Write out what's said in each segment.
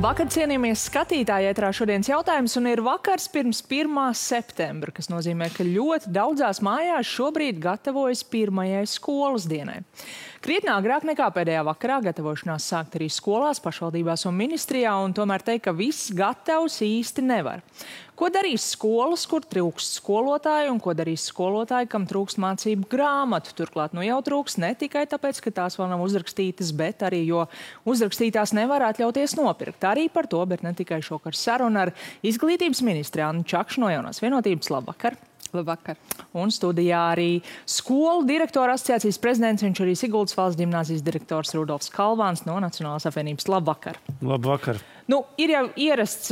Labvakar, cienījamies skatītāji, ētrā šodienas jautājums, un ir vakars pirms 1. septembra, kas nozīmē, ka ļoti daudzās mājās šobrīd gatavojas pirmajai skolas dienai. Krietni agrāk nekā pēdējā vakarā gatavošanās sākt arī skolās, pašvaldībās un ministrijā, un tomēr teikt, ka viss gatavs īsti nevar. Ko darīs skolas, kur trūkst skolotāju, un ko darīs skolotāji, kam trūkst mācību grāmatu? Turklāt jau trūkst ne tikai tāpēc, ka tās vēl nav uzrakstītas, bet arī, jo uzrakstītās nevar atļauties nopirkt. Arī par to, bet ne tikai šokar saruna ar izglītības ministri Annu Čakšu no Jaunās vienotības. Labvakar! Labvakar. Un studijā arī skolu direktora asociācijas prezidents, viņš arī Siguldas valsts ģimnāzijas direktors Rudolfs Kalvāns no Nacionālās apvienības. Labvakar! Labvakar! Ir jau ierasts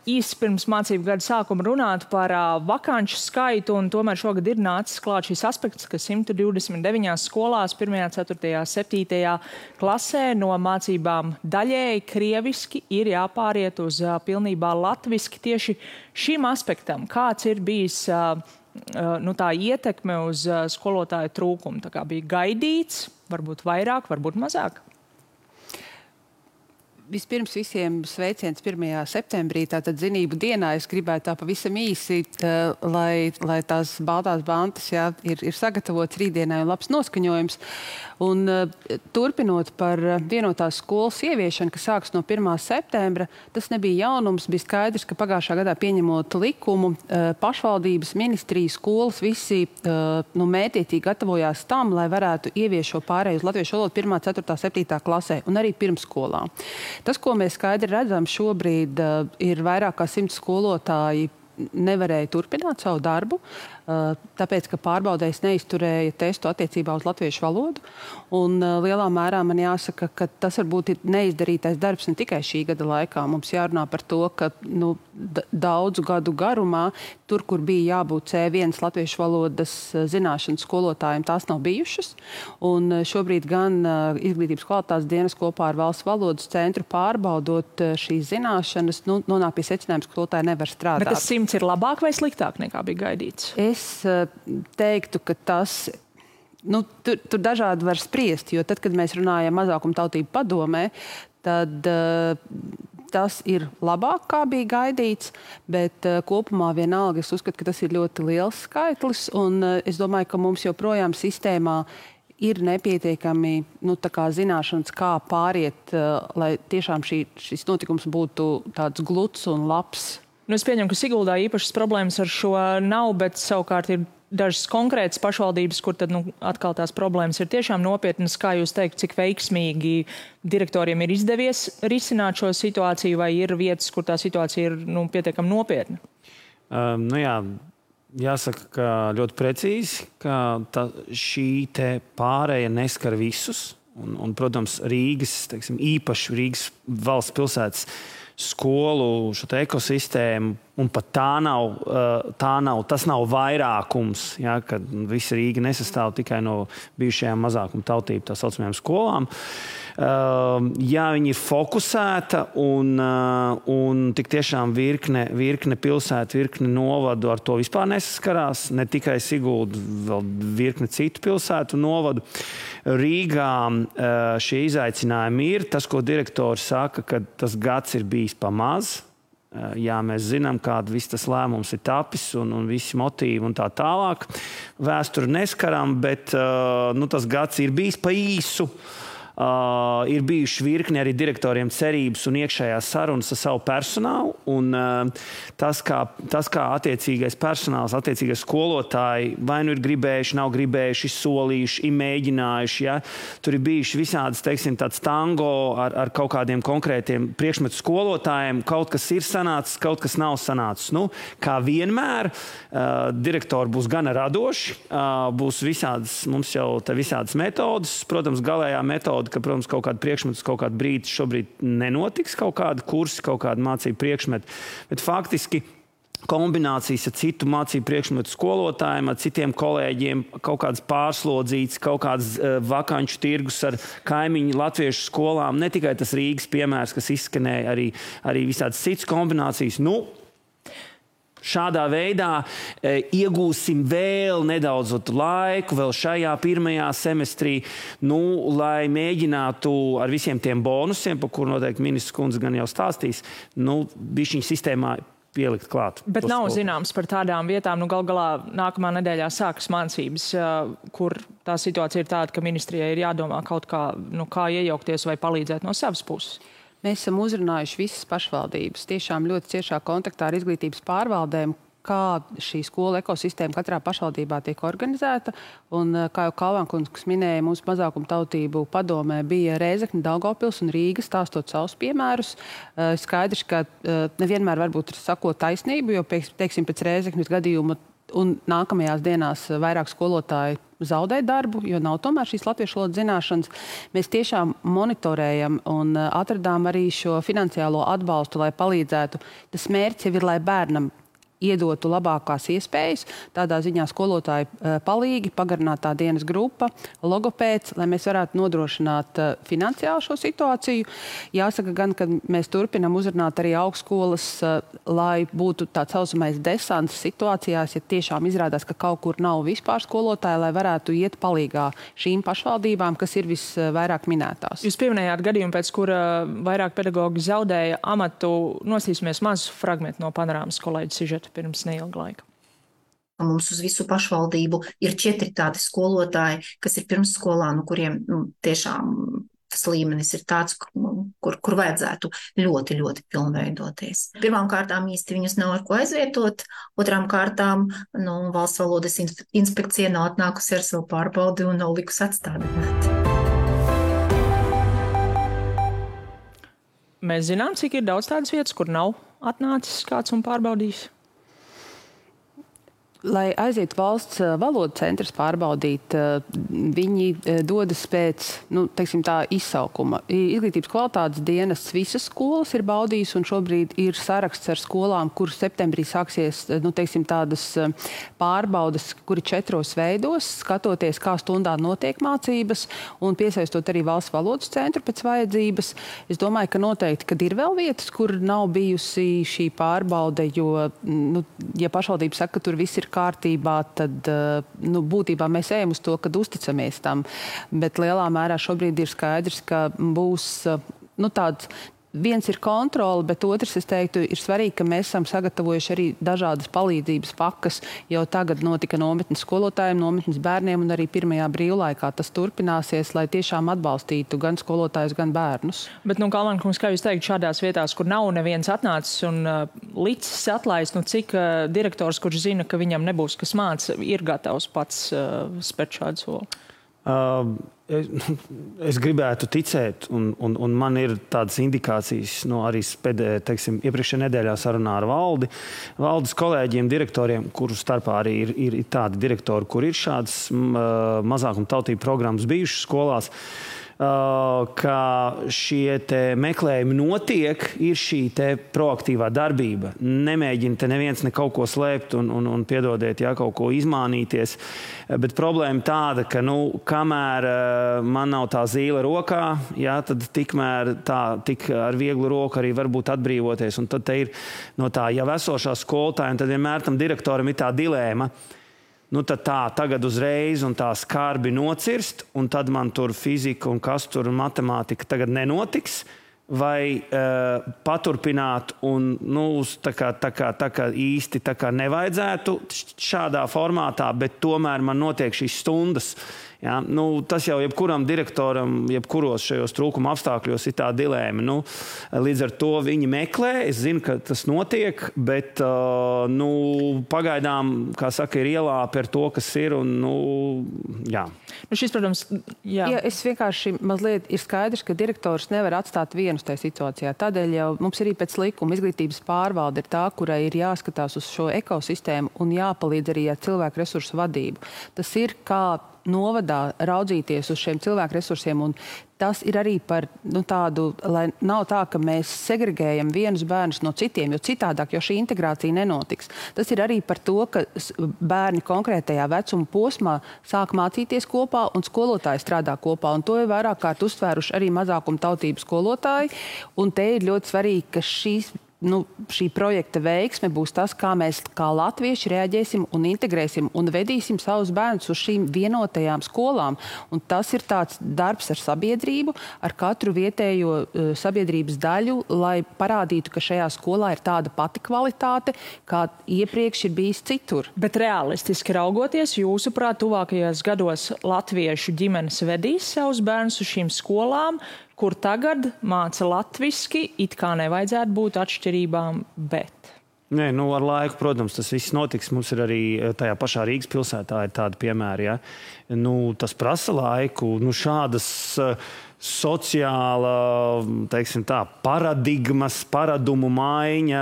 īsi pirms mācību gada sākuma runāt par vakanču skaitu, un tomēr šogad ir nācis klāt šis aspekts, ka 129 skolās 1., 4., 7. klasē no mācībām daļēji krieviski ir jāpāriet uz pilnībā latviski. Tieši šim aspektam, kāds ir bijis tā ietekme uz skolotāju trūkumu? Tā kā bija gaidīts, varbūt vairāk, varbūt mazāk? Vispirms visiem sveiciens 1. septembrī, tātad zinību dienā. Es gribētu tā pavisam īsi, lai tās baltās bantas ir sagatavots rītdienai un labs noskaņojums. Un turpinot par vienotās skolas ieviešanu, kas sāks no 1. septembra, tas nebija jaunums. Bija skaidrs, ka pagājušā gadā pieņemot likumu, pašvaldības, ministrijas, skolas visi mētiecīgi gatavojās tam, lai varētu ieviest šo pārēju uz latviešu valodu 1., 4., 7. klasē un arī pirmsskolā. Tas, ko mēs skaidri redzam šobrīd, ir vairāk kā 100 skolotāji nevarēja turpināt savu darbu, tāpēc, ka pārbaudējs neizturēja testu attiecībā uz latviešu valodu. Un lielā mērā man jāsaka, ka tas varbūt ir neizdarītais darbs ne tikai šī gada laikā. Mums jārunā par to, ka daudzu gadu garumā, tur, kur bija jābūt C1 latviešu valodas zināšanas skolotājiem, tās nav bijušas. Un šobrīd gan Izglītības kvalitātes dienas kopā ar Valsts valodas centru pārbaudot šīs zināšanas, nonāk pie secinājuma, ka skolotāji nevar strādāt. Bet tas 100 ir labāk vai sliktāk nekā bija gaidīts? Es teiktu, ka tas, tur dažādi var spriest, jo tad, kad mēs runājam mazākumtautību padomē, tad tas ir labāk, kā bija gaidīts, bet kopumā vienalga es uzskatu, ka tas ir ļoti liels skaitlis, un es domāju, ka mums joprojām sistēmā ir nepietiekami zināšanas, kā pāriet, lai tiešām šis notikums būtu tāds gluds un labs. Es pieņemu, ka Siguldā īpašas problēmas ar šo nav, bet savukārt ir dažas konkrētas pašvaldības, kur tad atkal tās problēmas ir tiešām nopietnas. Kā jūs teikt, cik veiksmīgi direktoriem ir izdevies risināt šo situāciju, vai ir vietas, kur tā situācija ir pietiekami nopietna? Jāsaka, ka ļoti precīzi, ka šī te pārēja neskar visus. Un protams, Rīgas, īpaši Rīgas valsts pilsētas skolu šo ekosistēmu, un pat tas nav vairākums, kad visa Rīga nesastāv tikai no bijušajām mazākuma tautību, tā saucamajām skolām. Viņi ir fokusēta un tik tiešām virkne pilsētu, virkne novadu ar to vispār nesaskarās, ne tikai Sigulda, vēl virkne citu pilsētu novadu. Rīgā šie izaicinājumi ir. Tas, ko direktori saka, ka tas gads ir bijis pamaz. Jā, mēs zinām, kāda viss tas lēmums ir tapis un visi motīvi un tā tālāk. Vēsturi neskaram, bet tas gads ir bijis pa īsu. Ir bijuši virkni arī direktoriem cerības un iekšējās sarunas ar savu personālu. Un tas, kā attiecīgais personāls, attiecīgais skolotāji vai nu ir gribējuši, nav gribējuši, solījuši, mēģinājuši. Ja? Tur ir bijuši visādas, tāds tango ar kaut kādiem konkrētiem priekšmetu skolotājiem. Kaut kas ir sanācis, kaut kas nav sanācis. Kā vienmēr, direktori būs gana radoši, būs visādas, mums jau te visādas metodas. Protams, galējā metoda, ka, protams, kaut kāda priekšmetus, kaut kāda brīdi šobrīd nenotiks, kaut kāda kursi, kaut kāda mācību priekšmeti. Bet faktiski kombinācijas ar citu mācību priekšmetu skolotājiem, ar citiem kolēģiem, kaut kādas pārslodzītas, kaut kādas vakanču tirgus ar kaimiņu latviešu skolām. Ne tikai tas Rīgas piemērs, kas izskanēja, arī visādas citas kombinācijas. Šādā veidā iegūsim vēl nedaudz laiku, vēl šajā pirmajā semestrī, lai mēģinātu ar visiem tiem bonusiem, par kur noteikti ministrs kundze gan jau stāstīs, bišķiņu sistēmā pielikt klāt. Bet nav zināms par tādām vietām, gal galā nākamā nedēļā sākas mācības, kur tā situācija ir tāda, ka ministrijai ir jādomā kaut kā, kā iejaukties vai palīdzēt no savas puses. Mēs esam uzrunājuši visas pašvaldības, tiešām ļoti ciešā kontaktā ar izglītības pārvaldēm, kā šī skola ekosistēma katrā pašvaldībā tiek organizēta. Un, kā jau Kalvankungs minēja, mūsu mazākumtautību padomē bija Rēzekne, Daugavpils un Rīga stāstot savus piemērus. Skaidrs, ka nevienmēr varbūt sakot taisnību, jo, teiksim, pēc Rēzeknes gadījuma un nākamajās dienās vairāk skolotāji zaudē darbu, jo nav tomēr šīs latviešu valodas zināšanas. Mēs tiešām monitorējam un atradām arī šo finansiālo atbalstu, lai palīdzētu. Tas mērķis jau ir, lai bērnam iedotu labākās iespējas, tādā ziņā skolotāji palīgi, pagarinātā dienas grupa, logopēds, lai mēs varētu nodrošināt finansiāli šo situāciju. Jāsaka gan, ka mēs turpinam uzrunāt arī augstskolas, lai būtu tāds saucamais desants situācijās, ja tiešām izrādās, ka kaut kur nav vispār skolotāji, lai varētu iet palīgā šīm pašvaldībām, kas ir visvairāk minētās. Jūs pieminējāt gadījumu, pēc kura vairāk pedagogi zaudēja amatu. Nosīsimies mazu fragmentu no panorāmas kolēģa sižeta pirms neilga laika. Mums uz visu pašvaldību ir 4 tādi skolotāji, kas ir pirmsskolā, kuriem tiešām tas līmenis ir tāds, kur vajadzētu ļoti, ļoti pilnveidoties. Pirmām kārtām īsti viņus nav ar ko aizvietot, otrām kārtām Valsts valodas inspekcija nav atnākusi ar savu pārbaudi un nav likusi atstādināt. Mēs zinām, cik ir daudz tādas vietas, kur nav atnācis kāds un pārbaudījis? Lai aizietu valsts valodu centrs pārbaudīt, viņi dodas pēc, teiksim tā, izsaukuma. Izglītības kvalitātes dienas visas skolas ir baudījis un šobrīd ir saraksts ar skolām, kur septembrī sāksies, teiksim, tādas pārbaudas, kuri 4 veidos, skatoties, kā stundā notiek mācības un piesaistot arī valsts valodas centru pēc vajadzības. Es domāju, ka noteikti, kad ir vēl vietas, kur nav bijusi šī pārbaude, jo, ja pašvaldība saka, ka tur viss ir kārtībā, tad būtībā mēs ejam uz to, kad uzticamies tam. Bet lielā mērā šobrīd ir skaidrs, ka būs tāds. Viens ir kontrole, bet otrs, es teiktu, ir svarīgi, ka mēs esam sagatavojuši arī dažādas palīdzības pakas. Jau tagad notika nometnes skolotājiem, nometnes bērniem un arī pirmajā brīvlaikā tas turpināsies, lai tiešām atbalstītu gan skolotājus, gan bērnus. Bet, Kalvankungs, kā jūs teikt, šādās vietās, kur nav neviens atnācis un licis atlaist, cik direktors, kurš zina, ka viņam nebūs kas māca, ir gatavs pats spērt šādu soli? Es gribētu ticēt, un man ir tādas indikācijas arī iepriekšējā nedēļā sarunā ar valdes kolēģiem, direktoriem, kuru starpā arī ir tādi direktori, kur ir šādas mazākumtautību programmas bijušas skolās, ka šie meklējumi notiek, ir šī proaktīvā darbība. Nemēģina te neviens kaut ko slēpt un piedodiet, kaut ko izmānīties. Bet problēma tāda, ka kamēr man nav tā zīle rokā, tad tikmēr tik ar vieglu roku arī varbūt atbrīvoties. Un tad te ir no tā jau esošā skolotāja, un tad vienmēr tam direktoram ir tā dilēma. Tad tagad uzreiz un tā skarbi nocirst, un tad man tur fizika un kas tur un matemātika tagad nenotiks, vai paturpināt un tā kā īsti nevajadzētu šādā formātā, bet tomēr man notiek šīs stundas. Ja? Tas jau jebkuram direktoram, jebkuros šajos trūkuma apstākļos ir tā dilēma. Līdz ar to viņi meklē, es zinu, ka tas notiek, bet pagaidām, kā saka, ir ielā par to, kas ir. Jā. Šis, protams, jā. Ja, es vienkārši mazliet ir skaidrs, ka direktors nevar atstāt vienus tajā situācijā. Tādēļ jau mums arī pēc likuma izglītības pārvalde ir tā, kurai ir jāskatās uz šo ekosistēmu un jāpalīdz arī ar cilvēku resursu vadību. Tas ir kā novadā raudzīties uz šiem cilvēku resursiem, un tas ir arī par tādu, lai nav tā, ka mēs segregējam vienus bērnus no citiem, jo citādāk, jo šī integrācija nenotiks. Tas ir arī par to, ka bērni konkrētajā vecuma posmā sāk mācīties kopā un skolotāji strādā kopā, un to ir vairāk kārt uztvēruši arī mazākumtautību skolotāji, un te ir ļoti svarīgi, ka šīs šī projekta veiksme būs tas, kā mēs kā latvieši reaģēsim un integrēsim un vedīsim savus bērnus uz šīm vienotajām skolām. Un tas ir tāds darbs ar sabiedrību, ar katru vietējo sabiedrības daļu, lai parādītu, ka šajā skolā ir tāda pati kvalitāte, kā iepriekš ir bijis citur. Bet realistiski raugoties, jūsuprāt, tuvākajos gados latviešu ģimenes vedīs savus bērnus uz šīm skolām, kur tagad māca latviski, it kā nevajadzētu būt atšķirībām, bet... Nē, ar laiku, protams, tas viss notiks. Mums ir arī tajā pašā Rīgas pilsētā ir tādi piemēri, ja. Tas prasa laiku, šādas sociāla, teiksim tā, paradumu maiņa,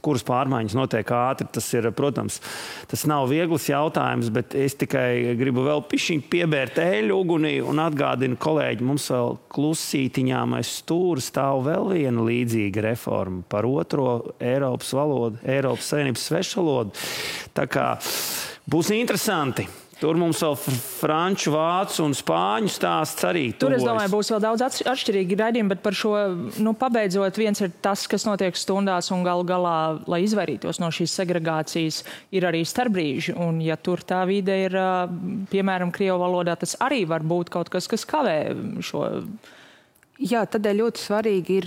kuras pārmaiņas notiek ātri, tas ir, protams, tas nav viegls jautājums, bet es tikai gribu vēl pišķiņ piebērt eļu ugunī un atgādinu kolēģi, mums vēl klusītiņām aiz stūra stāv vēl viena līdzīga reforma par otro Eiropas valodu, Eiropas Savienības svešvalodu. Tā kā būs interesanti. Tur mums vēl franču, vācu un spāņu stāsts arī tuvojas. Tur, es domāju, būs vēl daudz atšķirīgi raidījumi, bet par šo, pabeidzot, viens ir tas, kas notiek stundās un galu galā, lai izvairītos no šīs segregācijas, ir arī starpbrīži. Un ja tur tā vide ir, piemēram, krievu valodā, tas arī var būt kaut kas, kas kavē šo... Jā, tādēļ ļoti svarīgi ir,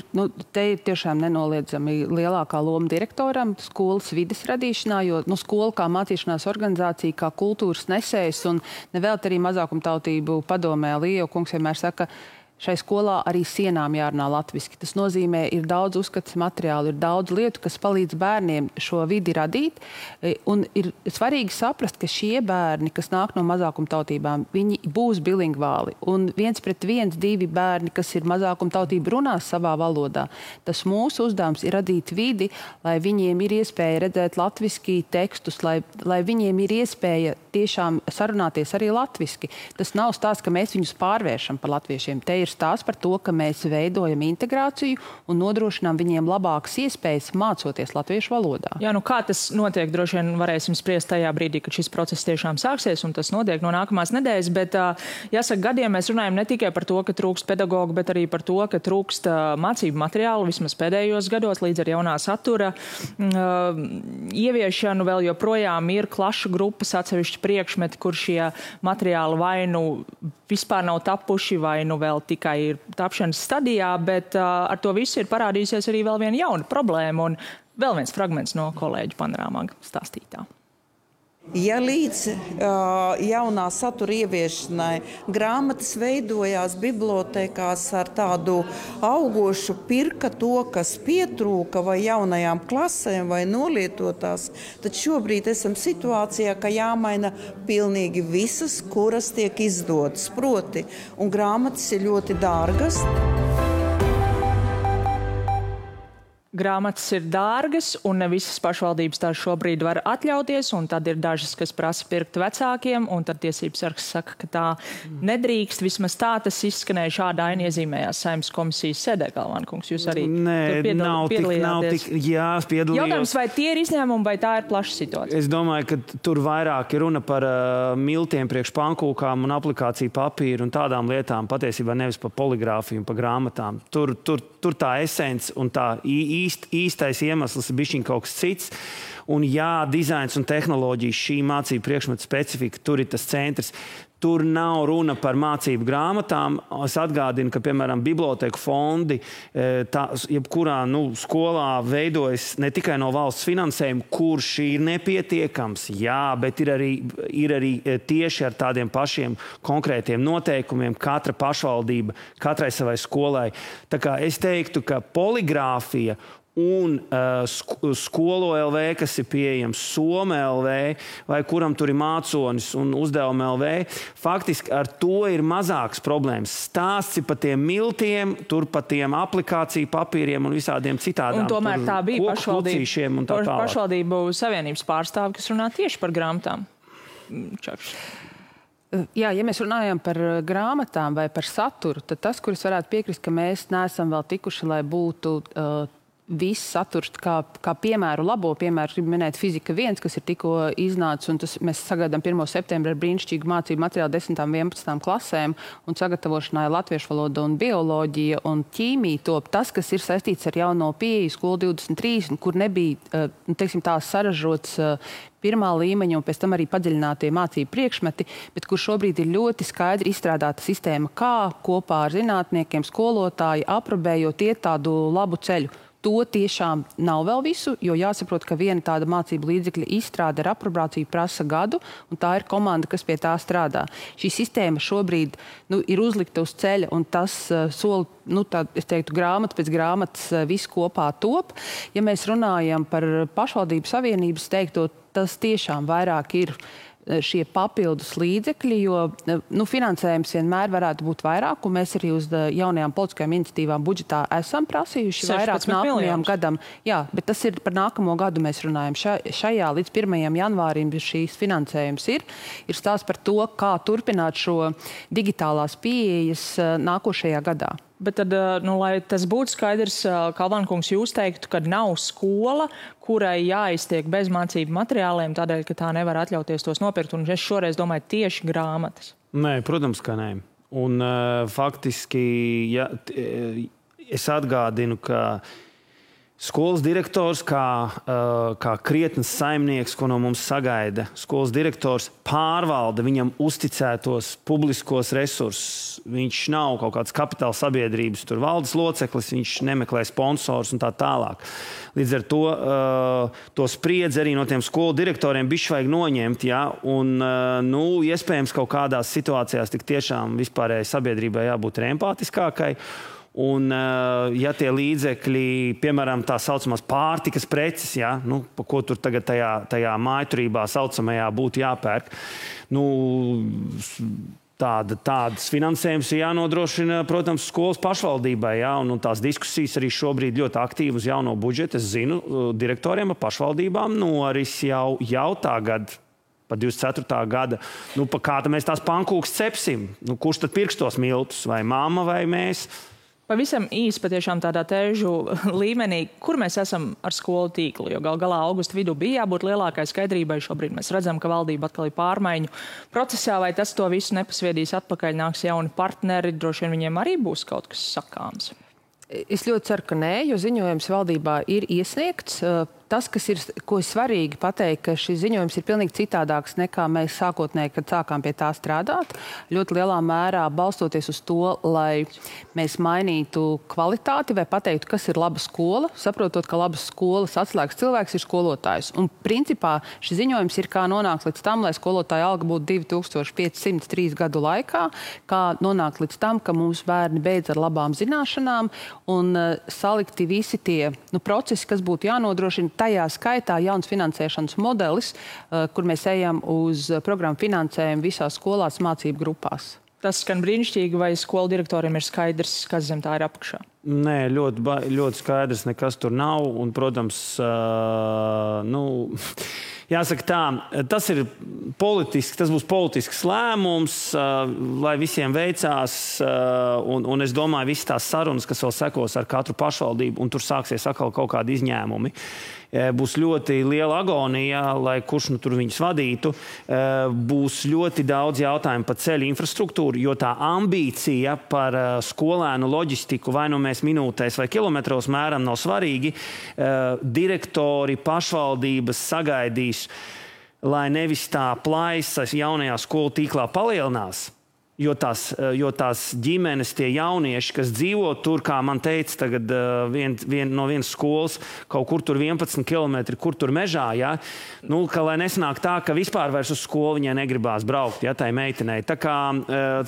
te ir tiešām nenoliedzami lielākā loma direktoram skolas vides radīšanā, jo skola kā mācīšanās organizācija, kā kultūras nesējs un nevēlt arī mazākumtautību padomē Līja kungs vienmēr saka, šai skolā arī sienām jārunā latviski. Tas nozīmē, ir daudz uzskats materiālu, ir daudz lietu, kas palīdz bērniem šo vidi radīt. Un ir svarīgi saprast, ka šie bērni, kas nāk no mazākumtautībām, viņi būs bilingvāli. Un 1:1, 2 bērni, kas ir mazākumtautība, runās savā valodā. Tas mūsu uzdevums ir radīt vidi, lai viņiem ir iespēja redzēt latviski tekstus, lai viņiem ir iespēja tiešām sarunāties arī latviski. Tas nav stāsts, ka mēs viņus pārvēršam par latviešiem. Te ir stāsts par to, ka mēs veidojam integrāciju un nodrošinām viņiem labākas iespējas mācoties latviešu valodā. Jā, kā tas notiek, droši vien varēsim spriest tajā brīdī, kad šis process tiešām sāksies, un tas notiek no nākamās nedēļas, bet jāsaka, gadiem mēs runājam ne tikai par to, ka trūkst pedagogu, bet arī par to, ka trūkst mācību materiālu vismaz pēdējos gados līdz ar jaunā satura ieviešanu. Vēl joprojām ir klašu grupas atsevišķi priekšmeti, kur šie materiāli vai vispār nav tapuši, vai vēl tikai ir tapšanas stadijā, bet ar to visu ir parādījusies arī vēl viena jauna problēma un vēl viens fragments no kolēģu panorāmā stāstītā. Ja līdz jaunā satura ieviešanai grāmatas veidojās bibliotēkās ar tādu augošu pirka to, kas pietrūka vai jaunajām klasēm vai nolietotās, tad šobrīd esam situācijā, ka jāmaina pilnīgi visas, kuras tiek izdotas proti, un grāmatas ir ļoti dārgas. Grāmatas ir dārgas, un ne visas pašvaldības tās šobrīd var atļauties, un tad ir dažas, kas prasa pirkt vecākiem, un tad tiesības sargs saka, ka tā nedrīkst. Vismaz tā tas izskanēja šādā iezīmējās Saeimas komisijas sēdē, Galvānkungs. Jūs arī piedalījāties. Jā, piedalījos. Jautājums, vai tie ir izņēmumi, vai tā ir plaša situācija? Es domāju, ka tur vairāk ir runa par miltiem priekš pankūkām un aplikāciju papīru un tādām lietām, patiesībā nevis par poligrāfiju un par grāmatām. Tur tā esence un tā īstais iemesls ir bišķiņ kaut kas cits. Un jā, dizains un tehnoloģijas, šī mācību priekšmeta specifika, tur ir tas centrs. Tur nav runa par mācību grāmatām. Es atgādinu, ka, piemēram, bibliotēku fondi, jebkurā skolā veidojas ne tikai no valsts finansējuma, kurš ir nepietiekams, jā, bet ir arī tieši ar tādiem pašiem konkrētiem noteikumiem katra pašvaldība, katrai savai skolai. Tā kā es teiktu, ka poligrāfija un skolo LV, kas ir pieejams, Soma LV, vai kuram tur ir māconis un uzdevuma LV, faktiski ar to ir mazāks problēmas. Stāsts ir par tiem miltiem, tur par tiem aplikāciju papīriem un visādiem citādām. Un tomēr tā bija pašvaldību savienības pārstāvi, kas runā tieši par grāmatām. Čakš. Jā, ja mēs runājam par grāmatām vai par saturu, tad tas, kuris varētu piekrist, ka mēs neesam vēl tikuši, lai būtu viss saturs, kā piemēru, labo piemēru, gribu minēt Fizika 1, kas ir tikko iznācis, un mēs sagaidām 1. septembra ar brīnišķīgu mācību materiālu 10. un 11. klasēm, un sagatavošanai latviešu valoda un bioloģija un ķīmija top tas, kas ir saistīts ar jauno pieeju skolu 23, kur nebija, teiksim, tās saražots pirmā līmeņa un pēc tam arī padziļinātie mācību priekšmeti, bet kur šobrīd ir ļoti skaidri izstrādāta sistēma, kā kopā ar zinātniekiem, skolotāji, aprobējot iet tādu labu ceļu. To tiešām nav vēl visu, jo jāsaprot, ka viena tāda mācību līdzekļa izstrāde ar aprobrāciju prasa gadu, un tā ir komanda, kas pie tā strādā. Šī sistēma šobrīd ir uzlikta uz ceļa, un tas soli, es teiktu, grāmata pēc grāmatas viss kopā top. Ja mēs runājam par pašvaldību savienības teikto, tas tiešām vairāk ir šie papildus līdzekļi, jo finansējums vienmēr varētu būt vairāk, un mēs arī uz jaunajām politiskajām iniciatīvām budžetā esam prasījuši vairāk nākamajam gadam. Jā, bet tas ir par nākamo gadu mēs runājam. Šajā līdz 1. janvārim šīs finansējums ir stāsts par to, kā turpināt šo digitālās pieejas nākošajā gadā. Bet tad, lai tas būtu skaidrs, Kalvānkungs, jūs teiktu, ka nav skola, kurai jāiztiek bez mācību materiāliem, tādēļ, ka tā nevar atļauties tos nopirkt, un es šoreiz domāju tieši grāmatas. Nē, protams, ka nē. Un faktiski, es atgādinu, ka skolas direktors, kā krietnes saimnieks, ko no mums sagaida, skolas direktors pārvalda viņam uzticētos publiskos resursus. Viņš nav kaut kāds kapitāla sabiedrības valdes loceklis, viņš nemeklē sponsors un tā tālāk. Līdz ar to spriedzi arī no tiem skolu direktoriem bišķi vajag noņemt, ja? Un, iespējams, kaut kādās situācijās tik tiešām vispārējai sabiedrībai jābūt empātiskākai. Un, ja tie līdzekļi, piemēram, tā saucamās pārtikas preces, ja, pa ko tur tagad tajā mājturībā saucamajā būtu jāpērk, tādas finansējums ir jānodrošina, protams, skolas pašvaldībai, ja, un tās diskusijas arī šobrīd ļoti aktīvi uz jauno budžetu. Es zinu, direktoriem ar pašvaldībām noris jau tagad. Pa 24. gada. Pa kāda mēs tās pankūkas cepsim? Kurš tad pirks tos miltus? Vai mamma vai mēs? Pavisam īsi patiešām tādā tēžu līmenī, kur mēs esam ar skolu tīklu, jo gal galā augusta vidū bija jābūt lielākai skaidrībai. Šobrīd mēs redzam, ka valdība atkal ir pārmaiņu procesā, vai tas to visu nepasviedīs atpakaļ, nāks jauni partneri, droši vien viņiem arī būs kaut kas sakāms. Es ļoti ceru, ka nē, jo ziņojums valdībā ir iesniegts. Tas, ko ir svarīgi pateikt, ka šis ziņojums ir pilnīgi citādāks nekā mēs sākotnēji, kad sākām pie tā strādāt. Ļoti lielā mērā balstoties uz to, lai mēs mainītu kvalitāti vai pateiktu, kas ir laba skola, saprotot, ka labas skolas atslēgas cilvēks ir skolotājs. Un principā šis ziņojums ir kā nonākt līdz tam, lai skolotāja alga būtu 2503 gadu laikā, kā nonākt līdz tam, ka mūsu bērni beidz ar labām zināšanām un salikti visi tie procesi, kas būtu jānodrošina. Tajā skaitā jauns finansēšanas modelis, kur mēs ejam uz programmu finansējumu visās skolās mācību grupās. Tas skan brīnišķīgi, vai skolu direktoriem ir skaidrs, kas zem tā ir apakšā? Nē, ļoti skaidrs, nekas tur nav. Un, protams, jāsaka tā, tas būs politisks lēmums, lai visiem veicās, un es domāju, visas tās sarunas, kas vēl sekos ar katru pašvaldību, un tur sāksies atkal kaut kādi izņēmumi. Būs ļoti liela agonija, lai kurš tur viņus vadītu. Būs ļoti daudz jautājumu par ceļu infrastruktūru, jo tā ambīcija par skolēnu loģistiku vai mēs minūtēs vai kilometros mēram nav svarīgi. Direktori, pašvaldības sagaidīs, lai nevis tā plaisa jaunajā skolu tīklā palielinās. Jo tās ģimenes, tie jaunieši, kas dzīvo tur, kā man teica, tagad no vienas skolas, kaut kur tur 11 kilometri, kur tur mežā, ja? Ka lai nesanāk tā, ka vispār vairs uz skolu viņai negribās braukt, ja, tai meitenei. Tā kā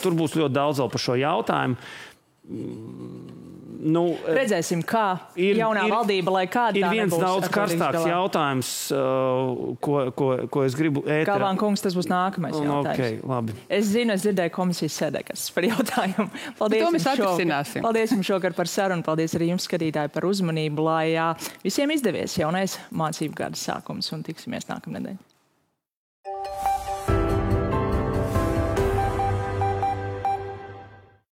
tur būs ļoti daudz vēl par šo jautājumu. Redzēsim, kā jaunā valdība, lai kāda tā nebūs. Ir viens daudz karstāks jautājums, ko es gribu ēterā. Kalvānkungs, tas būs nākamais jautājums. Okay, labi. Es dzirdēju komisijas sēdē, kas par jautājumu. Paldies jums šokar par sarunu, paldies arī jums, skatītāji, par uzmanību, lai visiem izdevies jaunais mācību gada sākums, un tiksimies nākamnedēļ.